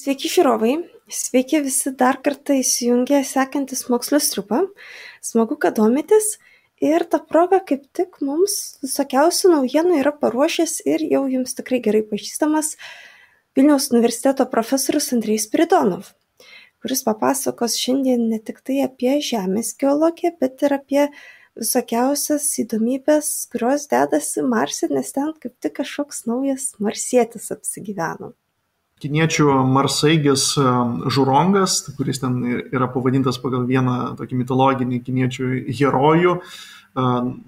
Sveiki žiūrovai, sveiki visi dar kartą įsijungę sekantis mokslo striupą. Smagu, kad domitės ir ta proga kaip tik mums visokiausių naujienų yra paruošęs ir jau jums tikrai gerai pažįstamas Vilniaus universiteto profesorius Andrejus Spiridonov, kuris papasakos šiandien ne tik tai apie Žemės geologiją, bet ir apie visokiausias įdomybės, kurios dedasi Marse, nes ten kaip tik kažkoks naujas marsietis apsigyveno. Kiniečių marsaeigis Žurongas, kuris ten yra pavadintas pagal vieną tokį mitologinį kiniečių herojų,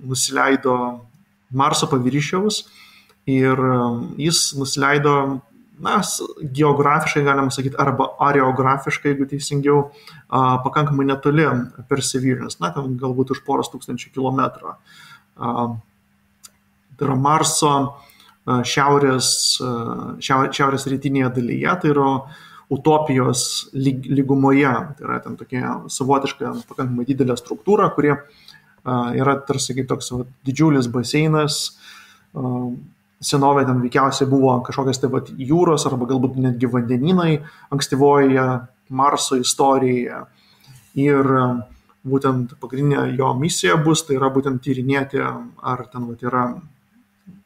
nusileido Marso paviršiaus ir jis nusileido, geografiškai galima sakyti, arba areografiškai, jeigu teisingiau, pakankamai netoli Perseverance, ten galbūt už poros tūkstančių kilometrų. Tai yra Marso šiaurės rytinėje dalyje, tai yra Utopijos lygumoje, tai yra ten tokia savotiška pakankamai didelė struktūra, kuri yra tarsi kaip toks didžiulis baseinas, senovė ten veikiausiai buvo kažkokios jūros arba galbūt netgi vandenynai ankstyvoje Marso istorijoje ir būtent pagrindinė jo misija bus, tai yra būtent tyrinėti, ar ten yra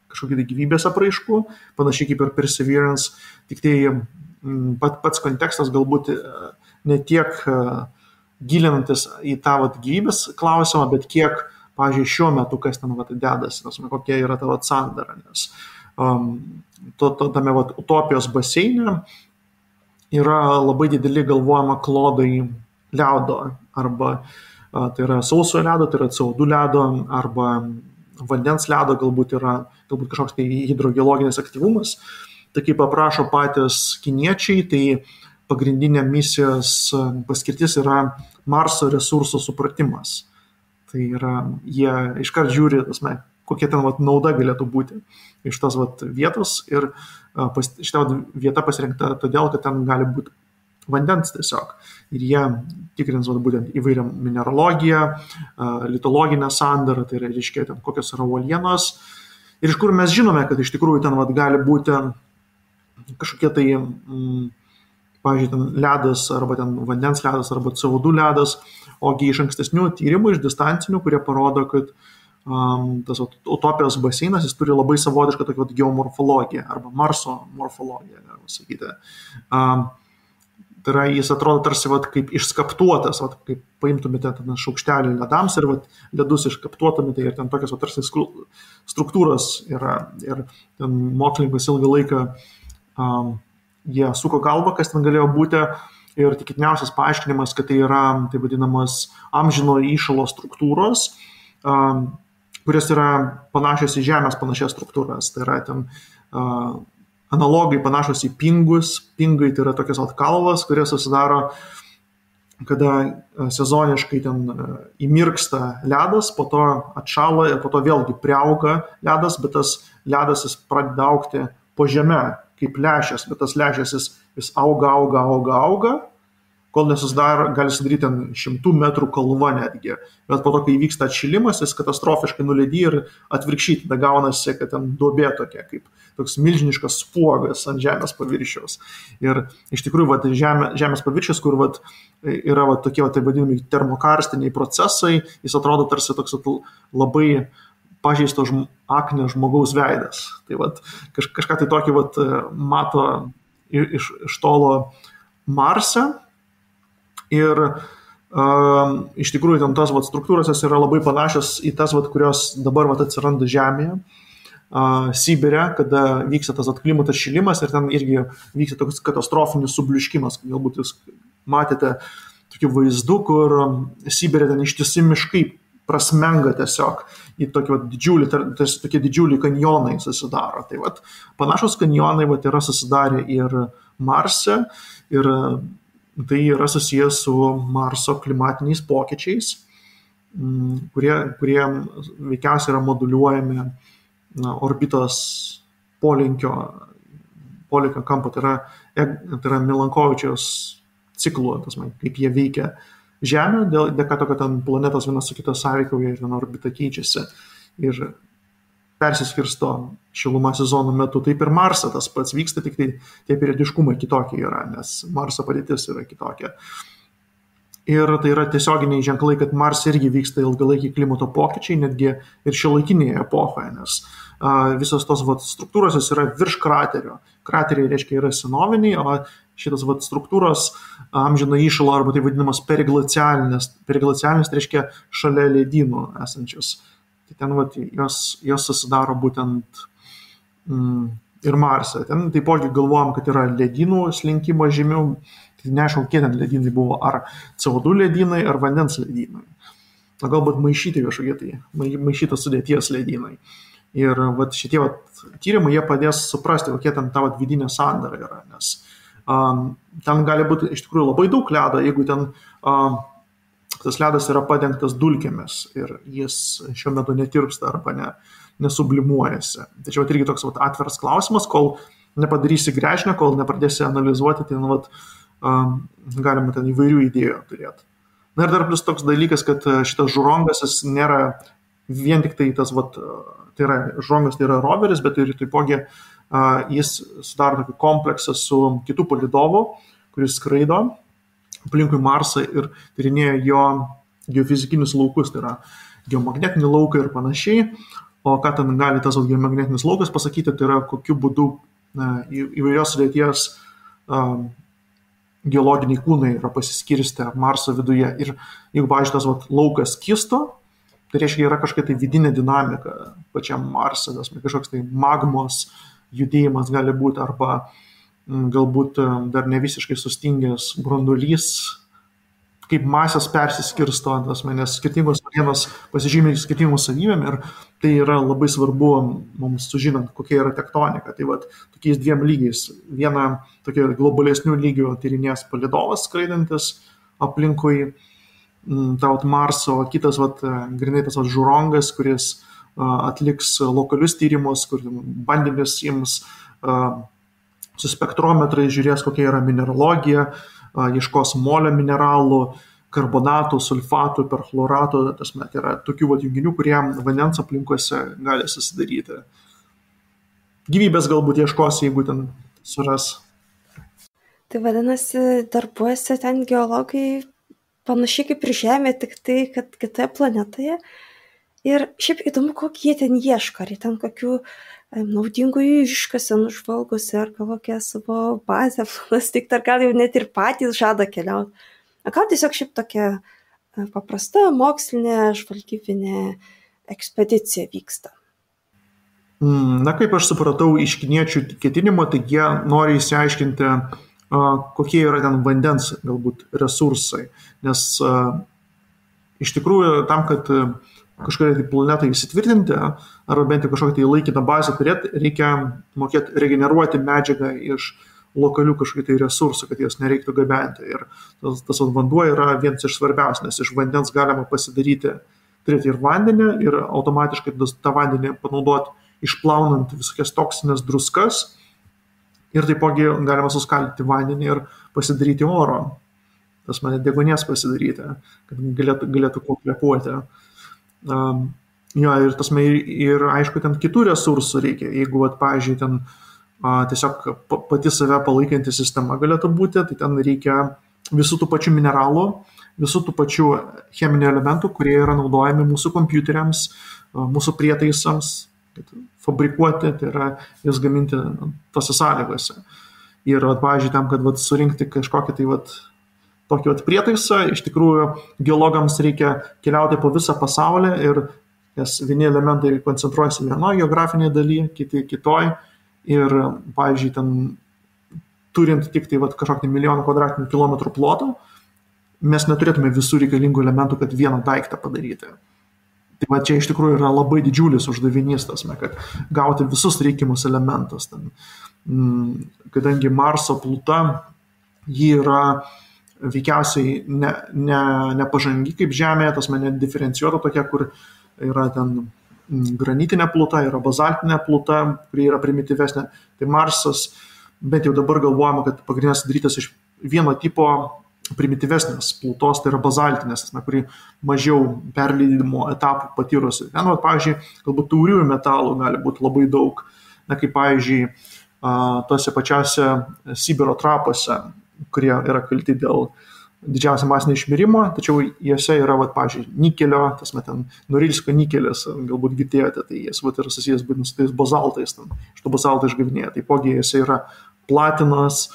kažkokių gyvybės apraiškų, panašiai kaip ir Perseverance, tik tai pats kontekstas galbūt ne tiek gilinantis į tą gyvybės klausimą, bet kiek, pavyzdžiui, šiuo metu kas ten dedasi, kokia yra ta sandara, nes tame Utopijos baseine yra labai dideli galvojama klodai ledo, arba tai yra sausojo ledo, tai yra CO2 ledo, arba vandens ledo, galbūt kažkoks tai hidrogeologinis aktyvumas. Tai kaip aprašo patys kiniečiai, tai pagrindinė misijos paskirtis yra Marso resursų supratimas. Tai yra, jie iškart žiūri, kokia ten nauda galėtų būti iš tos vietos ir šita vieta pasirinkta todėl, kad ten gali būti vandens tiesiog. Ir jie tikrins būtent įvairią mineralogiją, litologinę sandarą, tai reiškia ten kokios yra uolienos. Ir iš kur mes žinome, kad iš tikrųjų ten gali būti kažkokie tai, pavyzdžiui, ten ledas, arba ten vandens ledas, arba CO2 ledas, ogi iš ankstesnių tyrimų, iš distancinių, kurie parodo, kad tas Utopijos baseinas, jis turi labai savotišką tokią geomorfologiją, arba Marso morfologiją, galima sakyti. Tai yra, jis atrodo tarsi kaip išskaptuotas, kaip paimtumėte šaukštelį ledams ir ledus išskaptuotumėte ir ten tokios tarsi struktūros yra. Ir ten mokslininkas ilgą laiką jie suko galvą, kas ten galėjo būti, ir tikėtiniausias paaiškinimas, kad tai yra tai vadinamas amžino įšalo struktūros, kurios yra panašios į Žemės panašias struktūras. Tai yra ten analogai panašus į pingus. Pingai tai yra tokios kalvos, kurie susidaro, kada sezoniškai ten įmirksta ledas, po to atšąla ir po to vėlgi priauga ledas, bet tas ledas jis pradeda augti po žeme, kaip lęšis, bet tas lęšis jis auga, kol nesusidaro, gali sudaryti 100 metrų kalva netgi. Bet po to, kai įvyksta atšilimas, jis katastrofiškai nuledyja ir atvirkščiai tada gaunasi, kad ten duobė tokia, kaip toks milžiniškas spuogas ant Žemės paviršiaus. Ir iš tikrųjų Žemės paviršius, kur yra tokie tai vadinami termokarstiniai procesai, jis atrodo tarsi toks labai pažeisto akne žmogaus veidas. Tai kažką tai tokį mato iš tolo Marse. Ir iš tikrųjų ten tos struktūros yra labai panašios į tas, kurios dabar atsiranda Žemėje, Sibire, kada vyksta tas klimato atšilimas ir ten irgi vyksta toks katastrofinis subliuškimas. Galbūt jūs matėte tokių vaizdų, kur Sibire ten ištisi miškai prasmenga tiesiog į tokie didžiuliai kanjonai susidaro. Tai panašus kanjonai yra susidarę ir Marse, ir tai yra susijęs su Marso klimatiniais pokyčiais, kurie veikiausiai yra moduliuojami orbitos polinkio kampo, tai yra Milankovičiaus ciklo, kaip jie veikia Žemę, dėka to, kad ten planetos vienas su kitos sąveikauja ir viena orbita keičiasi. Ir persiskirsto šiluma sezono metu, taip ir Marse tas pats vyksta, tik tai tie periodiškumai kitokie yra, nes Marso padėtis yra kitokia. Ir tai yra tiesioginiai ženklai, kad Marse irgi vyksta ilgalaikiai klimato pokyčiai, netgi ir šiuolaikinėje epochoje, nes visos tos struktūros yra virš kraterio. Krateriai reiškia yra senoviniai, o šitas struktūros amžina įšalo arba tai vadinamas periglacialinės. Periglacialinės tai reiškia šalia ledynų esančius. Tai ten jos susidaro būtent ir Marse. Ten taipogi galvojam, kad yra ledynų slinkimo žymių. Tai neaišku, kiek ten ledynai buvo, ar CO2 ledynai, ar vandens ledynai. Galbūt maišyti kažkokie tai, maišytos sudėties ledynai. Ir šitie tyrimai jie padės suprasti, kokie ten ta vidinė sandara yra, nes ten gali būti iš tikrųjų labai daug ledo, jeigu ten tas ledas yra padengtas dulkėmis ir jis šiuo metu netirpsta arba nesublimuojasi. Tačiau irgi toks atviras klausimas, kol nepadarysi gręžinio, kol nepradėsi analizuoti, tai galima ten įvairių idėjų turėti. Na ir dar plus toks dalykas, kad šitas žurongas jis nėra vien tik tai tas, tai yra žurongas, tai yra roveris, bet ir taipogi jis sudaro tokį kompleksą su kitų palydovų, kuris skraido aplinkui Marsą ir tyrinėja jo geofizikinius laukus, tai yra geomagnetinį lauką ir panašiai. O ką ten gali tas geomagnetinis laukas pasakyti, tai yra kokiu būdu įvairios sudėties geologiniai kūnai yra pasiskirstę Marso viduje. Ir jeigu, pavyzdžiui, tas laukas kisto, tai reiškia, yra kažkokia tai vidinė dinamika pačiam Marse, kažkoks tai magmos judėjimas gali būti, arba galbūt dar ne visiškai sustingęs branduolys, kaip masės persiskirsto, nes skirtingos vienos pasižymė skirtingos savybėm ir tai yra labai svarbu mums sužinant, kokia yra tektonika. Tai tokiais dviem lygiais. Viena tokia globalesnių lygių tyrinės palydovas skraidantis aplinkui Marso, o kitas grinai tas žurongas, kuris atliks lokalius tyrimus, kur bandėmis ims su spektrometrai, žiūrės, kokia yra mineralogija, ieškos molio mineralų, karbonatų, sulfatų, perchloratų, tai yra tokių junginių, kurie vandens aplinkose gali susidaryti. Gyvybės galbūt ieškos, jeigu ten suras. Tai vadinasi, darbuojasi ten geologai panašiai kaip ir Žemė, tik tai, kad kitoje planetoje. Ir šiaip įdomu, kokį jie ten ieško, ar jie ten kokių naudingų iškasenų žvalgosi, ar kokią savo bazę plastikti, ar gal jau net ir patys žada keliauti. Gal tiesiog šiaip tokia paprasta mokslinė žvalgybinė ekspedicija vyksta. Na, kaip aš supratau iš kiniečių ketinimo, tai jie nori įsiaiškinti, kokie yra ten vandens galbūt resursai. Nes iš tikrųjų tam, kad kažkokią planetą įsitvirtinti, arba bent jau kažkokią laikiną bazę turėti, reikia mokėti regeneruoti medžiagą iš lokalių kažkokių resursų, kad jos nereiktų gabenti. Ir tas vanduo yra vienas iš svarbiausių, nes iš vandens galima pasidaryti, turėti ir vandenį, ir automatiškai tą vandenį panaudoti išplaunant visokias toksinės druskas. Ir taipogi galima suskaldyti vandenį ir pasidaryti oro. Tas deguonies pasidaryti, kad galėtų kuo kvėpuoti. Ir aišku, ten kitų resursų reikia. Jeigu, pavyzdžiui, ten tiesiog pati save palaikanti sistema galėtų būti, tai ten reikia visų tų pačių mineralų, visų tų pačių cheminių elementų, kurie yra naudojami mūsų kompiuteriams, mūsų prietaisams, fabrikuoti, tai yra jas gaminti tose sąlygose. Ir, pavyzdžiui, tam, kad surinkti kažkokį tokį prietaisą, iš tikrųjų geologams reikia keliauti po visą pasaulį ir nes vieni elementai koncentruojasi vienoje geografinėje dalyje, kiti kitoj. Ir, pavyzdžiui, ten turint tik tai kažkokį 1 milijoną kvadratinių kilometrų plotą, mes neturėtume visų reikalingų elementų, kad vieną daiktą padaryti. Tai čia iš tikrųjų yra labai didžiulis uždavinys, kad gauti visus reikiamus elementus. Kadangi Marso pluta, ji yra veikiausiai nepažangi kaip Žemė, nediferencijuota tokia, kur yra ten granitinė pluta, yra bazaltinė pluta, kuri yra primityvesnė. Tai Marsas, bent jau dabar galvojama, kad pagrindinės sudarytas iš vieno tipo primityvesnės plutos, tai yra bazaltinės, kuri mažiau perleidimo etapų patyrusi. Ten, pavyzdžiui, galbūt tauriųjų metalų gali būti labai daug, kaip pavyzdžiui, tose pačiose Sibiro trapuose, kurie yra kalti dėl didžiausia masinio išmirimo, tačiau jose yra, pavyzdžiui, nikelio, ten Norilsko nikelis, galbūt girdėjote, tai jis yra susijęs būtent su tais bazaltais, iš to bazalto išgavinėja. Taipogi jose yra platinas,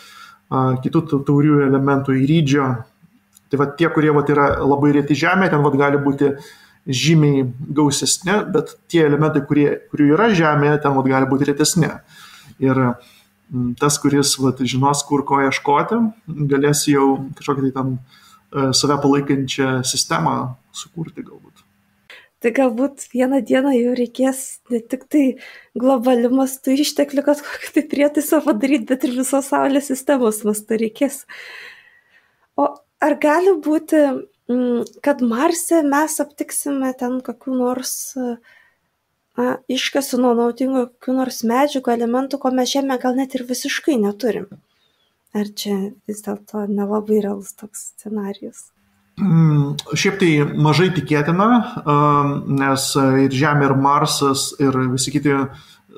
kitų tauriųjų elementų, įrydžio. Tai tie, kurie yra labai reti žemė, ten gali būti žymiai gausesni, bet tie elementai, kurių yra žemėje, ten gali būti retesni. Ir tas, kuris žinos, kur ko ieškoti, galės jau kažkokią tai tam save palaikančią sistemą sukurti galbūt. Tai galbūt vieną dieną jau reikės ne tik tai globaliu mastu išteklių, kad kokį tai prietaisą padaryti, bet ir visos Saulės sistemos mastu reikės. O ar gali būti, kad Marse mes aptiksime ten kokių nors iškasų nuo naudingų kokių nors medžiagų, elementų, ko mes Žemė gal net ir visiškai neturim? Ar čia vis dėlto nelabai realus toks scenarijus? Šiaip tai mažai tikėtina, nes ir Žemė, ir Marsas, ir visi kiti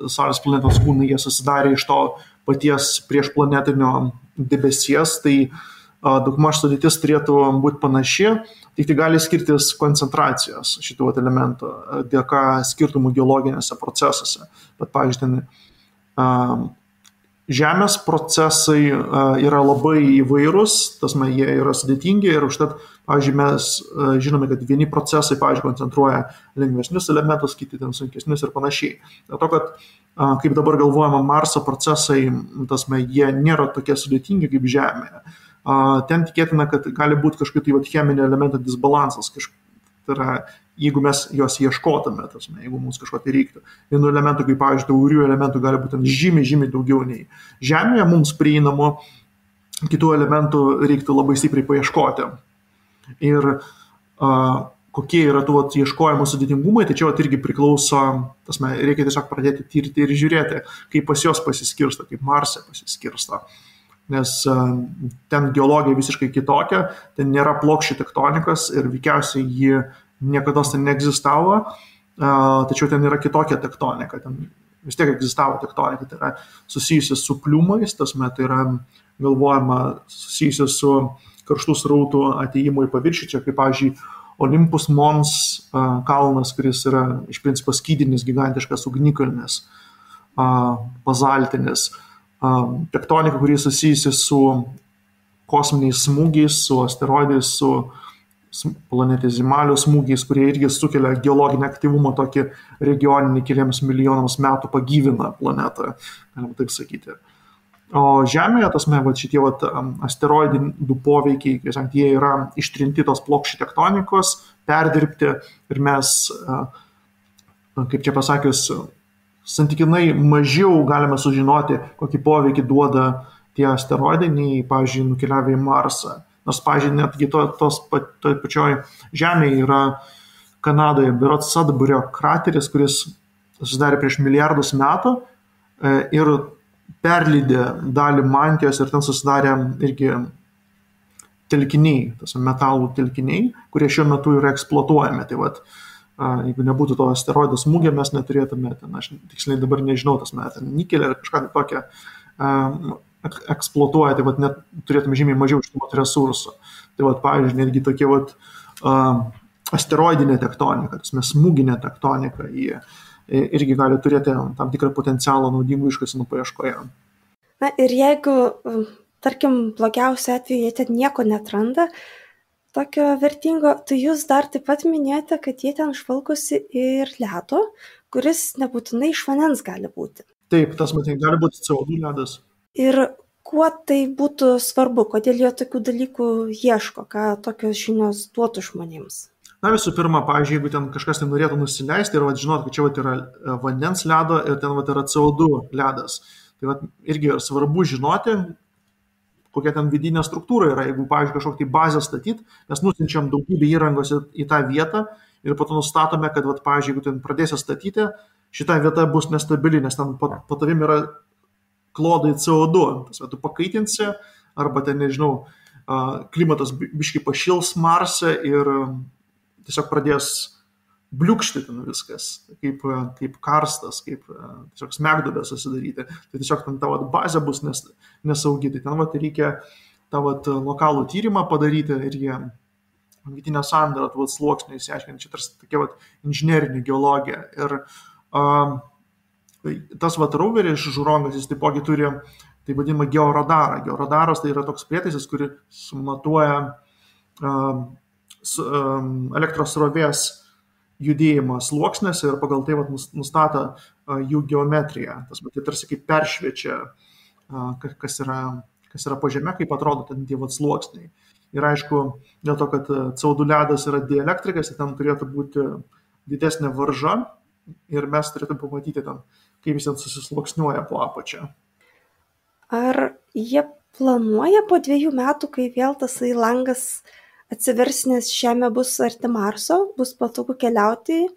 Saulės planetos kūnai, jie susidarė iš to paties priešplanetinio debesies, tai daugmaž sudėtis turėtų būti panaši, tik tai gali skirtis koncentracijos šitų elementų dėka skirtumų geologinėse procesuose. Bet, pavyzdžiui, Žemės procesai yra labai įvairūs, jie yra sudėtingi ir užtat, pavyzdžiui, mes žinome, kad vieni procesai, pavyzdžiui, koncentruoja lengvesnius elementus, kiti ten sunkesnius ir panašiai. Dėl to, kad kaip dabar galvojama, Marso procesai, jie nėra tokie sudėtingi kaip Žemėje. Ten tikėtina, kad gali būti kažkokių cheminio elemento disbalansas, tai yra, jeigu mes juos ieškotume, jeigu mums kažko tai reiktų. Vienų elementų, kaip pavyzdžiui, taurių elementų gali būti žymiai daugiau nei Žemėje, mums prieinamų, kitų elementų reiktų labai stipriai paieškoti. Ir kokie yra tų ieškojimų sudėtingumai, tai čia irgi priklauso, reikia tiesiog pradėti tirti ir žiūrėti, kaip pas jos pasiskirsto, kaip Marse pasiskirsto. Nes ten geologija visiškai kitokia, ten nėra plokščių tektonikos ir veikiausiai ji niekada ten neegzistavo, tačiau ten yra kitokia tektonika, ten vis tiek egzistavo tektonika, tai yra susijusi su pliumais, tai yra galvojama susijusi su karštų srautų atėjimu į paviršių, čia kaip, pavyzdžiui, Olympus Mons kalnas, kuris yra iš principo skydinis, gigantiškas ugnikalnis, bazaltinis, tektonika, kuri susijusi su kosminiais smūgiais, su asteroidais, su planetizimalių smūgiais, kurie irgi sukelia geologinį aktyvumą, tokį regioninį keliems milijonams metų pagyvina planetą, galima taip sakyti. O Žemėje, šitie asteroidinių poveikiai, jie yra ištrinti tos plokščių tektonikos, perdirbti ir mes, kaip čia pasakius, santykinai mažiau galime sužinoti, kokį poveikį duoda tie asteroidai, nei, pavyzdžiui, nukeliavę į Marsą. Nors, pavyzdžiui, netgi toj pačioj Žemėje yra Kanadoje berods Sudburio krateris, kuris susidarė prieš milijardus metų ir perlydė dalį mantijos ir ten susidarė irgi telkiniai, metalų telkiniai, kurie šiuo metu yra eksploatuojami. Tai jeigu nebūtų to asteroido smūgio, mes neturėtume, aš tiksliai dabar nežinau, nikelį ar kažką tokią eksploatuoja, tai net turėtume žymiai mažiau iš tų resursų. Tai pavyzdžiui, netgi tokie asteroidinė tektonika, smūginė tektonika, jie irgi gali turėti tam tikrą potencialą naudingų iškasenų paieškoje. Na ir jeigu, tarkim, blogiausiu atveju jie ten nieko neatranda, tokio vertingo, tai jūs dar taip pat minėjote, kad jie ten žvalgosi ir ledo, kuris nebūtinai iš vandens gali būti. Taip, gali būti CO2 ledas. Ir kuo tai būtų svarbu, kodėl jie tokių dalykų ieško, ką tokios žinios duotų žmonėms? Na, visų pirma, pavyzdžiui, jeigu ten kažkas tai norėtų nusileisti ir žinot, kad čia yra vandens ledo ir ten yra CO2 ledas, tai irgi svarbu žinoti, kokia ten vidinė struktūra yra. Jeigu, pavyzdžiui, kažkokią tai bazę statyti, mes nusinčiam daugybę įrangos į tą vietą ir po to nustatome, kad, pavyzdžiui, jeigu ten pradėsi statyti, šita vieta bus nestabili, nes ten po tavim yra klodai CO2. Tu pakaitinsi arba ten, nežinau, klimatas biškai pašils Marse ir tiesiog pradės bliukšti ten viskas, kaip karstas, kaip tiesiog smegduobė susidaryti. Tai tiesiog ten tavo bazė bus nesaugi. Tai ten reikia tavo lokalų tyrimą padaryti ir jie vidinę sandarą, sluoksnį įsiaiškinti. Čia tarsi tokia inžinerinė geologija. Ir tas roveris iš Žurongas, jis taipogi turi tai vadinamą georadarą. Georadaras tai yra toks prietaisas, kuris matuoja elektros srovės judėjimą sluoksnėse ir pagal tai nustato jų geometriją. Tai tarsi kaip peršviečia, kas yra po žeme, kaip atrodo ten tie sluoksniai. Ir aišku, dėl to, kad CO2 ledas yra dielektrikas, tai ten turėtų būti didesnė varža ir mes turėtume pamatyti ten, kaip jis ten susisluoksniuoja po apačią. Ar jie planuoja po 2 metų, kai vėl tasai langas atsivers, nes Žemė bus arti Marso, bus patogu keliauti,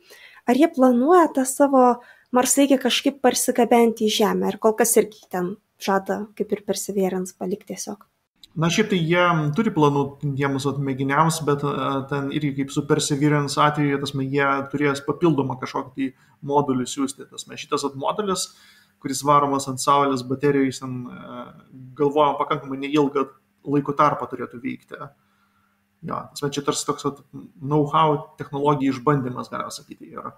ar jie planuoja tą savo marsaeigį kažkaip parsigabenti į Žemę, ar kol kas irgi ten žada, kaip ir Perseverance, palikti tiesiog? Na, šiaip tai jie turi planų tiems mėginiams, bet ten irgi kaip su Perseverance atveju, jie turės papildomą kažkokį modulį siūsti. Šitas modulis, kuris varomas ant Saulės baterijų, jis galvojama pakankamai neilgą laiko tarpą turėtų vykti. Ja, čia tarsi toks know-how technologijų išbandymas, galima sakyti, yra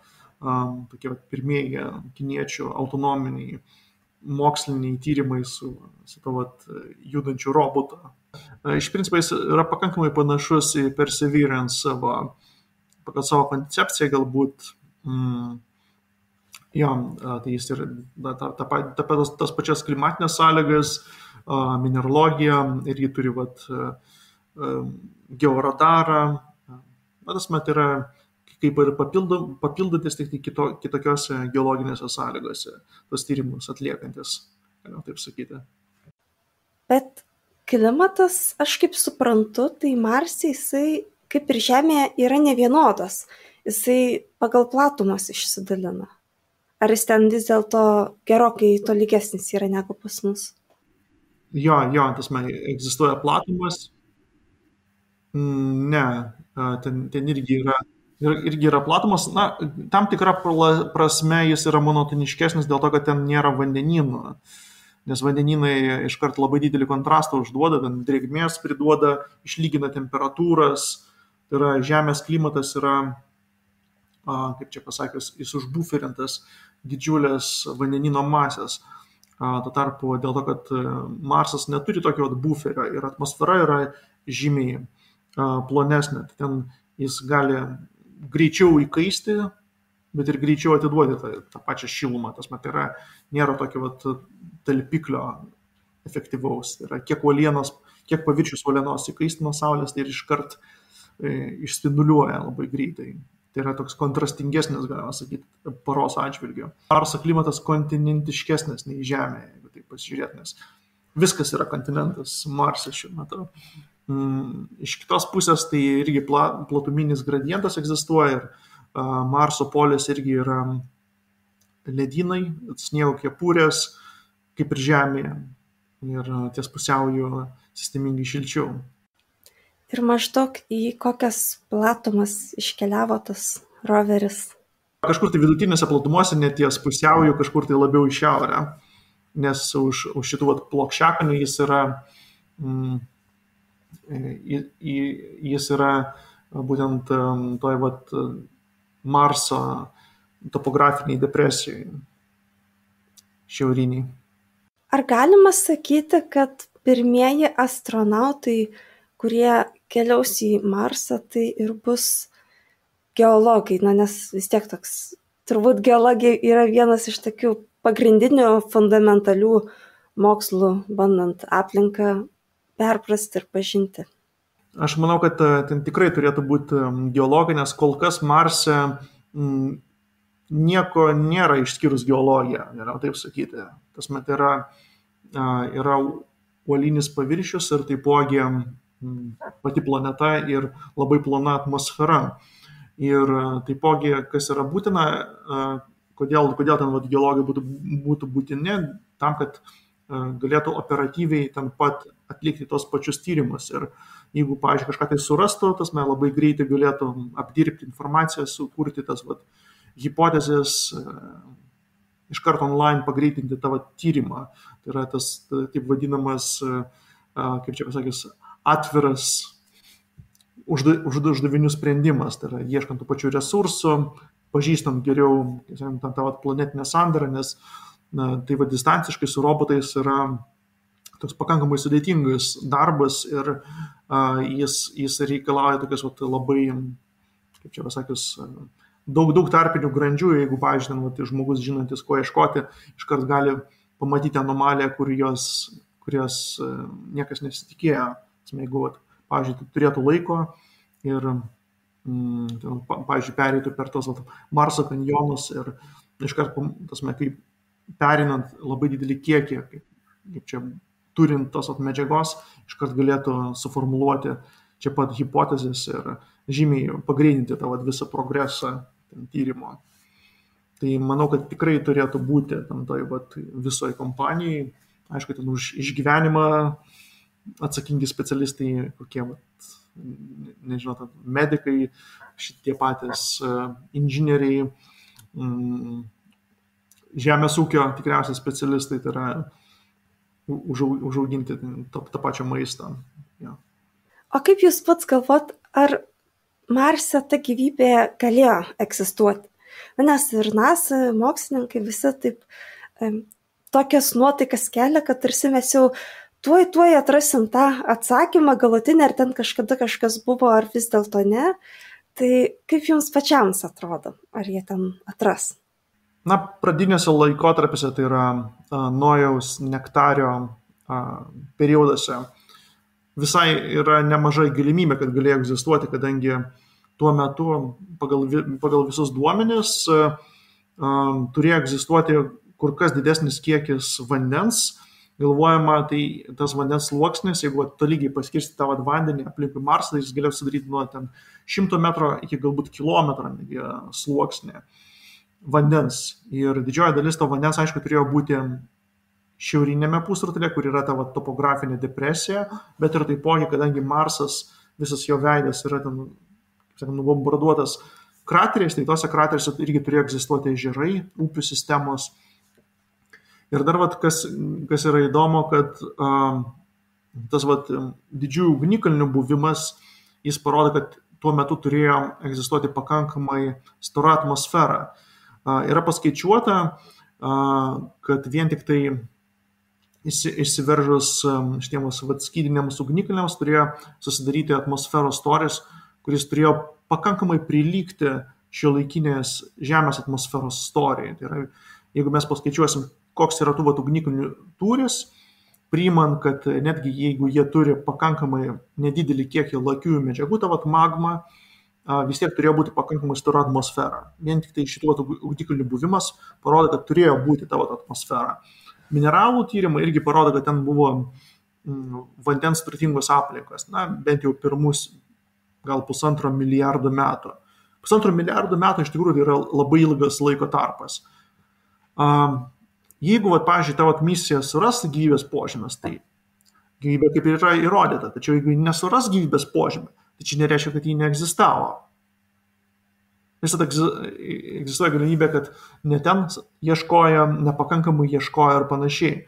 tokie pirmieji kiniečių autonominiai moksliniai tyrimai su judančiu robotu. Iš principo jis yra pakankamai panašus į Perseverance pagal savo koncepciją galbūt. Tai jis ir tas pačias klimatinės sąlygas, mineralogiją ir jį turi georadarą. Tas yra kaip ir papildantis tik kitokiose geologinėse sąlygose, tos tyrimus atliekantis, galima taip sakyti. Bet klimatas, aš kaip suprantu, tai Marse jisai, kaip ir Žemėje, yra nevienodas. Jisai pagal platumas išsidalina. Ar jis ten vis dėlto gerokai tolygesnis yra negu pas mus? Jo, egzistuoja platumas. Ne, ten irgi yra platumas. Na, tam tikra prasme jis yra monotoniškesnis dėl to, kad ten nėra vandenynų. Nes vandenynai iškart labai didelį kontrastą užduoda, ten drėgmės priduoda, išlygina temperatūras. Tai yra Žemės klimatas yra, kaip čia pasakius, jis užbuferintas didžiulės vandenyno masės. Tuo tarpu dėl to, kad Marsas neturi tokio buferio ir atmosfera yra žymiai plonesnė. Ten jis gali greičiau įkaisti, bet ir greičiau atiduoti tą pačią šilumą. Tai yra, nėra tokio talpiklio efektyvaus. Tai yra, kiek paviršius uolienos įkaisti nuo Saulės, tai ir iškart išspinduliuoja labai greitai. Tai yra toks kontrastingesnis, galima sakyti, paros atžvilgiu. Marso klimatas kontinentiškesnis nei Žemė, jeigu taip pasižiūrėt, nes viskas yra kontinentas Marse šiuo metu. Iš kitos pusės tai irgi platuminis gradientas egzistuoja ir Marso polės irgi yra ledynai, sniego kepurės, kaip ir Žemėje, ir ties pusiaujo sistemingai šilčiau. Ir maždaug į kokias platumas iškeliavo tas roveris? Kažkur tai vidutinėse platumose, net ties pusiaujo, kažkur tai labiau į šiaurę, nes už šitų plokščiakalių jis yra būtent toj Marso topografiniai depresijai šiauriniai. Ar galima sakyti, kad pirmieji astronautai, kurie keliaus į Marsą, tai ir bus geologai, nes vis tiek toks, turbūt geologija yra vienas iš tokių pagrindinių fundamentalių mokslų, bandant aplinką perprasti ir pažinti? Aš manau, kad ten tikrai turėtų būti geologai, nes kol kas Marse nieko nėra išskyrus geologiją, galima taip sakyti. Tai yra uolinis paviršius ir taipogi pati planeta ir labai plona atmosfera. Ir taipogi, kas yra būtina, kodėl ten geologai būtų būtini, tam, kad galėtų operatyviai ten pat atlikti tos pačius tyrimus. Ir jeigu, pavyzdžiui, kažką tai surastų, tas labai greitai galėtų apdirbti informaciją, sukurti tas hipotezės, iš karto online pagreitinti tavo tyrimą. Tai yra tas taip vadinamas, kaip čia pasakys, atviras uždavinių sprendimas. Tai yra ieškant tų pačių resursų, pažįstant geriau tą planetinę sandarą, nes tai distanciškai su robotais yra toks pakankamai sudėtingas darbas ir jis reikalauja tokias labai, kaip čia pasakius, daug tarpinių grandžių. Jeigu, pavyzdžiui, žmogus žinantis, ko ieškoti, iškart gali pamatyti anomaliją, kurios niekas nesitikėjo. Jeigu, pavyzdžiui, turėtų laiko ir, pavyzdžiui, pereitų per tos Marso kanjonus ir iškart, kaip perinant labai didelį kiekį, kaip čia turint tos medžiagos, iškart galėtų suformuluoti čia pat hipotezės ir žymiai pagreitinti tą visą progresą tyrimo. Tai manau, kad tikrai turėtų būti toj visoje kompanijai. Aišku, ten už išgyvenimą atsakingi specialistai, kokie, nežinau, medikai, šitie patys inžinieriai, žemės ūkio tikriausiai specialistai, tai yra užauginti tą pačią maistą. Ja. O kaip jūs pats galvot, ar Marse ta gyvybė galėjo egzistuoti? Nes ir NASA mokslininkai visi taip tokias nuotaikas kelia, kad tarsi mes jau tuoj atrasim tą atsakymą galutinį, ar ten kažkada kažkas buvo, ar vis dėlto ne. Tai kaip jums pačiams atrodo, ar jie ten atras? Pradinėse laikotarpiuose, tai yra Nojaus nektario perioduose, visai yra nemažai galimybė, kad galėjo egzistuoti, kadangi tuo metu pagal visus duomenis turėjo egzistuoti kur kas didesnis kiekis vandens. Galvojama, tai tas vandens sluoksnis, jeigu tolygiai paskirsti tą vandenį aplinkui Marsą, tai jis galėjo sudaryti nuo 100 metrų iki galbūt kilometro sluoksnį vandens. Ir didžioji dalis to vandens, aišku, turėjo būti šiaurinėme pusrutulyje, kur yra ta topografinė depresija, bet ir taipogi, kadangi Marsas, visas jo veidas yra ten, kaip sakant, bombarduotas krateriais, tai tose krateriuose irgi turėjo egzistuoti ežerai, upių sistemos. Ir dar, kas yra įdomu, kad tas didžiųjų ugnikalnių buvimas, jis parodo, kad tuo metu turėjo egzistuoti pakankamai stora atmosfera. Yra paskaičiuota, kad vien tik tai išsiveržus šitiems skydiniams ugnikalniams turėjo susidaryti atmosferos storis, kuris turėjo pakankamai prilygti šiuolaikinės Žemės atmosferos storiai. Tai yra, jeigu mes paskaičiuosim, koks yra tų ugnikalnių tūris, priimant, kad netgi jeigu jie turi pakankamai nedidelį kiekį lakiųjų medžiagų, ta magma, vis tiek turėjo būti pakankamai stora atmosfera. Vien tik tai šitų ugnikalnių buvimas parodo, kad turėjo būti ta atmosfera. Mineralų tyrimai irgi parodo, kad ten buvo vandens turtingos aplinkos, bent jau pirmus gal 1,5 milijardo metų. 1,5 milijardo metų iš tikrųjų yra labai ilgas laiko tarpas. Jeigu, pavyzdžiui, tavo misija suras gyvybės požymės, tai gyvybė kaip ir yra įrodyta, tačiau jeigu nesuras gyvybės požymė, tai čia nereiškia, kad ji neegzistavo. Visada egzistuoja galimybė, kad ne ten ieškojo, nepakankamai ieškojo ir panašiai.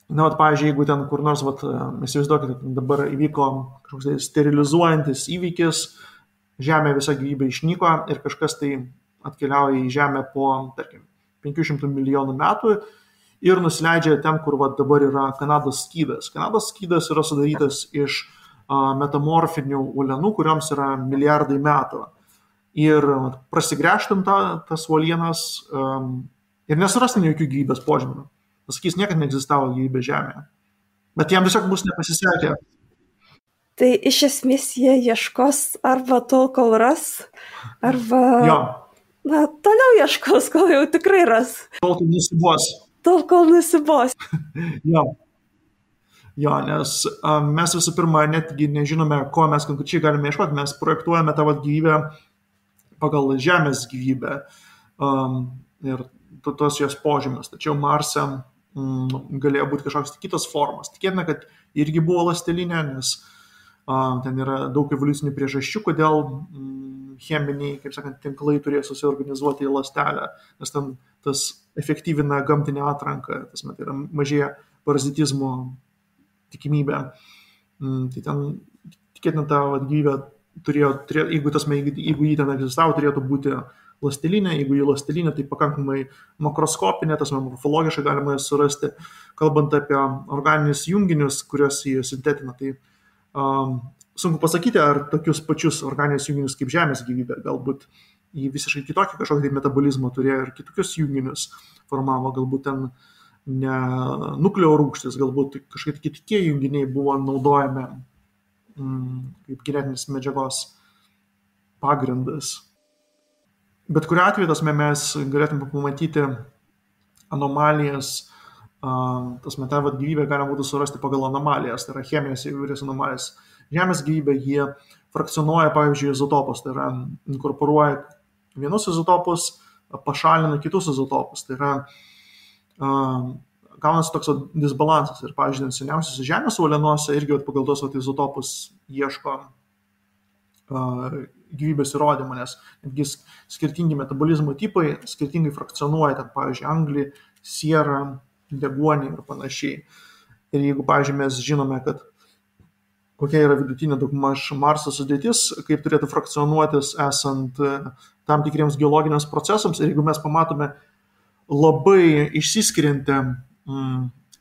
Pavyzdžiui, jeigu ten kur nors, įsivaizduokite, dabar įvyko kažkoks sterilizuojantis įvykis, Žemė visa gyvybė išnyko ir kažkas tai atkeliauja į Žemę po, tarkim, 500 milijonų metų ir nusileidžia ten, kur dabar yra Kanados skydas. Kanados skydas yra sudarytas iš metamorfinių uolienų, kurioms yra milijardai metų. Ir prasigręžtum tas uolienas ir nesurastum jokių gyvybės požymių. Pasakys, niekad neegzistavo gyvybė Žemėje. Bet jam tiesiog bus nepasisekę. Tai iš esmės jie ieškos arba tol, kol ras, arba... Jo. Toliau ieškos, kol jau tikrai ras. Tol, kol nusibos. Tol, kol nusibos. Jo, nes mes visų pirma netgi nežinome, ko mes konkrečiai galime ieškoti. Mes projektuojame tą gyvybę pagal Žemės gyvybę ir tos jos požymius. Tačiau Marse galėjo būti kažkoks kitos formos. Tikėtina, kad irgi buvo ląstelinė, nes ten yra daug evoliucinių priežasčių, kodėl cheminiai, kaip sakant, tinklai turėjo susiorganizuoti į ląstelę, nes ten tas efektyvina gamtinę atranką, tai yra mažėja parazitizmo tikimybė. Tai ten tikėtina ta gyvybė turėjo, jeigu jį ten egzistavo, turėtų būti ląstelinė, jeigu jį ląstelinė, tai pakankamai makroskopinė, morfologiškai galima surasti, kalbant apie organinius junginius, kuriuos jį sintetina. Tai sunku pasakyti, ar tokius pačius organinius junginius kaip Žemės gyvybė, galbūt jį visiškai kitokį kažkokį metabolizmą turėjo ir kitokius junginius formavo, galbūt ten ne nukleo rūgštis, galbūt kažkaip kitie junginiai buvo naudojami kaip genetinis medžiagos pagrindas. Bet kuriuo atveju mes galėtume pamatyti anomalijas, tą gyvybę galima būtų surasti pagal anomalijas, tai yra cheminės įvairias anomalijas. Žemės gyvybė jie frakcionuoja, pavyzdžiui, izotopus, tai yra inkorporuoja vienus izotopus, pašalina kitus izotopus, tai yra gaunasi toks disbalansas ir, pavyzdžiui, seniausiuose Žemės uolienuose irgi pagal tos izotopus ieško gyvybės įrodymų, nes netgi skirtingi metabolizmo tipai skirtingai frakcionuoja, ten, pavyzdžiui, anglį, sierą, deguonį ir panašiai. Ir jeigu, pavyzdžiui, mes žinome, kad kokia yra vidutinė daugmaž Marso sudėtis, kaip turėtų frakcionuotis esant tam tikriems geologiniams procesams, ir jeigu mes pamatome labai išsiskiriantį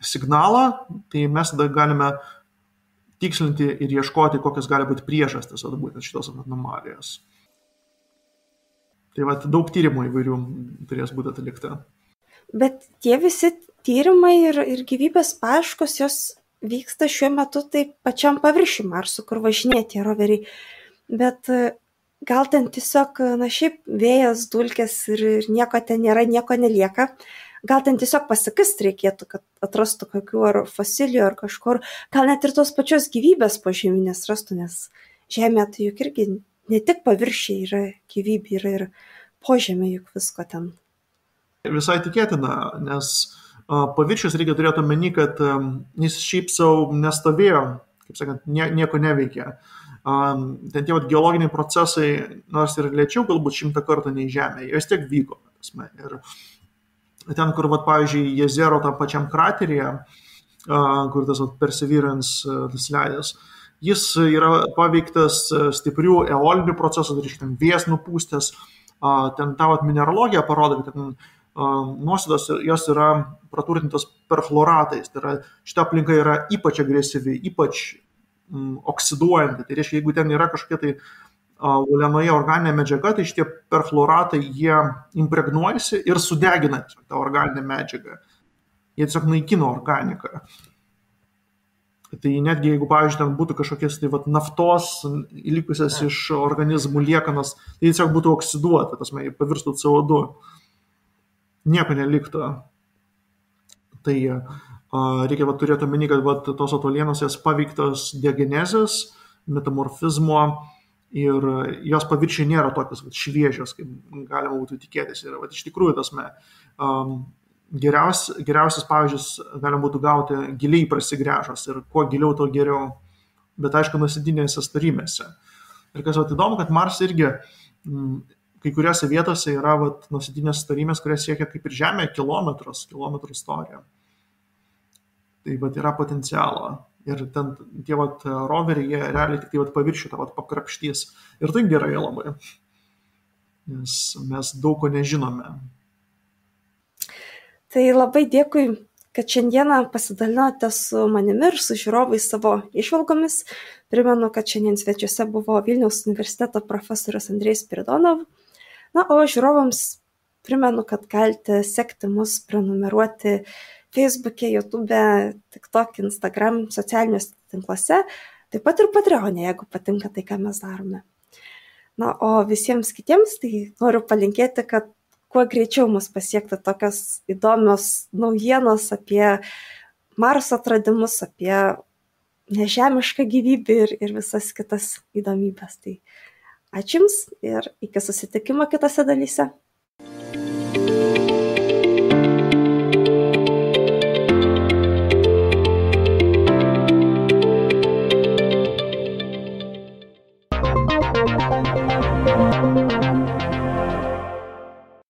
signalą, tai mes tada galime tikslinti ir ieškoti, kokios gali būti priežastys būtent šitos anomalijos. Tai daug tyrimų įvairių turės būti atlikta. Bet tie visi tyrimai ir gyvybės paieškos, jos vyksta šiuo metu taip pačiam paviršiui Marso, kur važinėja tie roveriai. Bet gal ten tiesiog, šiaip vėjas, dulkės ir nieko ten nėra, nieko nelieka. Gal ten tiesiog pasikast reikėtų, kad atrastų kokių ar fosilijų ar kažkur, gal net ir tos pačios gyvybės požeminės rastų, nes Žemė tai juk irgi ne tik paviršiai yra gyvybė, yra ir požemė juk visko ten. Visai tikėtina, nes paviršius reikia turėti omeny, kad jis šiaip savo nestovėjo, kaip sakant, nieko neveikė. Ten tie geologiniai procesai, nors ir lėčiau galbūt 100 kartų nei Žemė, jie vis tiek vyko. Ir ten, kur, pavyzdžiui, Jezero tam pačiam krateryje, kur tas Perseverance leidęs, jis yra paveiktas stiprių eolinių procesų, tai reiškia, vėjas nupūstęs, ten ta mineralogija parodo, kad ten nuosėdos jos yra praturtintos perchloratais, tai yra šita aplinka yra ypač agresyvi, ypač oksiduojanti, tai reiškia, jeigu ten yra kažkokia tai uolienoje organinė medžiaga, tai šitie perfluoratai jie impregnuojasi ir sudegina tą organinę medžiagą. Jie tiesiog naikina organiką. Tai netgi jeigu, pavyzdžiui, ten būtų kažkokias naftos likusias iš organizmų liekanas, tai tiesiog būtų oksiduota, pavirstų CO2. Nieko neliktų. Tai reikia turėti omeny, kad tos uolienos jas paveiktos diagenezės, metamorfizmo, ir jos paviršiai nėra tokios šviežios, kaip galima būtų tikėtis. Ir iš tikrųjų geriausias pavyzdžius galima būtų gauti giliai prasigręžus ir kuo giliau, to geriau, bet aišku nuosėdinėse storymėse. Ir kas įdomu, kad Mars irgi kai kuriuose vietose yra nuosėdinės storymės, kurios siekia kaip ir Žemė kilometrų storija. Tai yra potencialo. Ir ten tie roveriai, jie realiai tik paviršių tą pakrapštys. Ir tai gerai labai, nes mes daug ko nežinome. Tai labai dėkui, kad šiandieną pasidalinote su manimi ir su žiūrovais savo įžvalgomis. Primenu, kad šiandien svečiuose buvo Vilniaus universiteto profesorius Andrejus Spiridonov. O žiūrovams primenu, kad galite sekti mus, prenumeruoti Facebook'e, YouTube'e, TikTok, Instagram, socialiniuose tinkluose, taip pat ir Patreon'e, jeigu patinka tai, ką mes darome. O visiems kitiems tai noriu palinkėti, kad kuo greičiau mus pasiektų tokios įdomios naujienos apie Marso atradimus, apie nežemišką gyvybę ir visas kitas įdomybės. Tai ačiū Jums ir iki susitikimo kitose dalyse.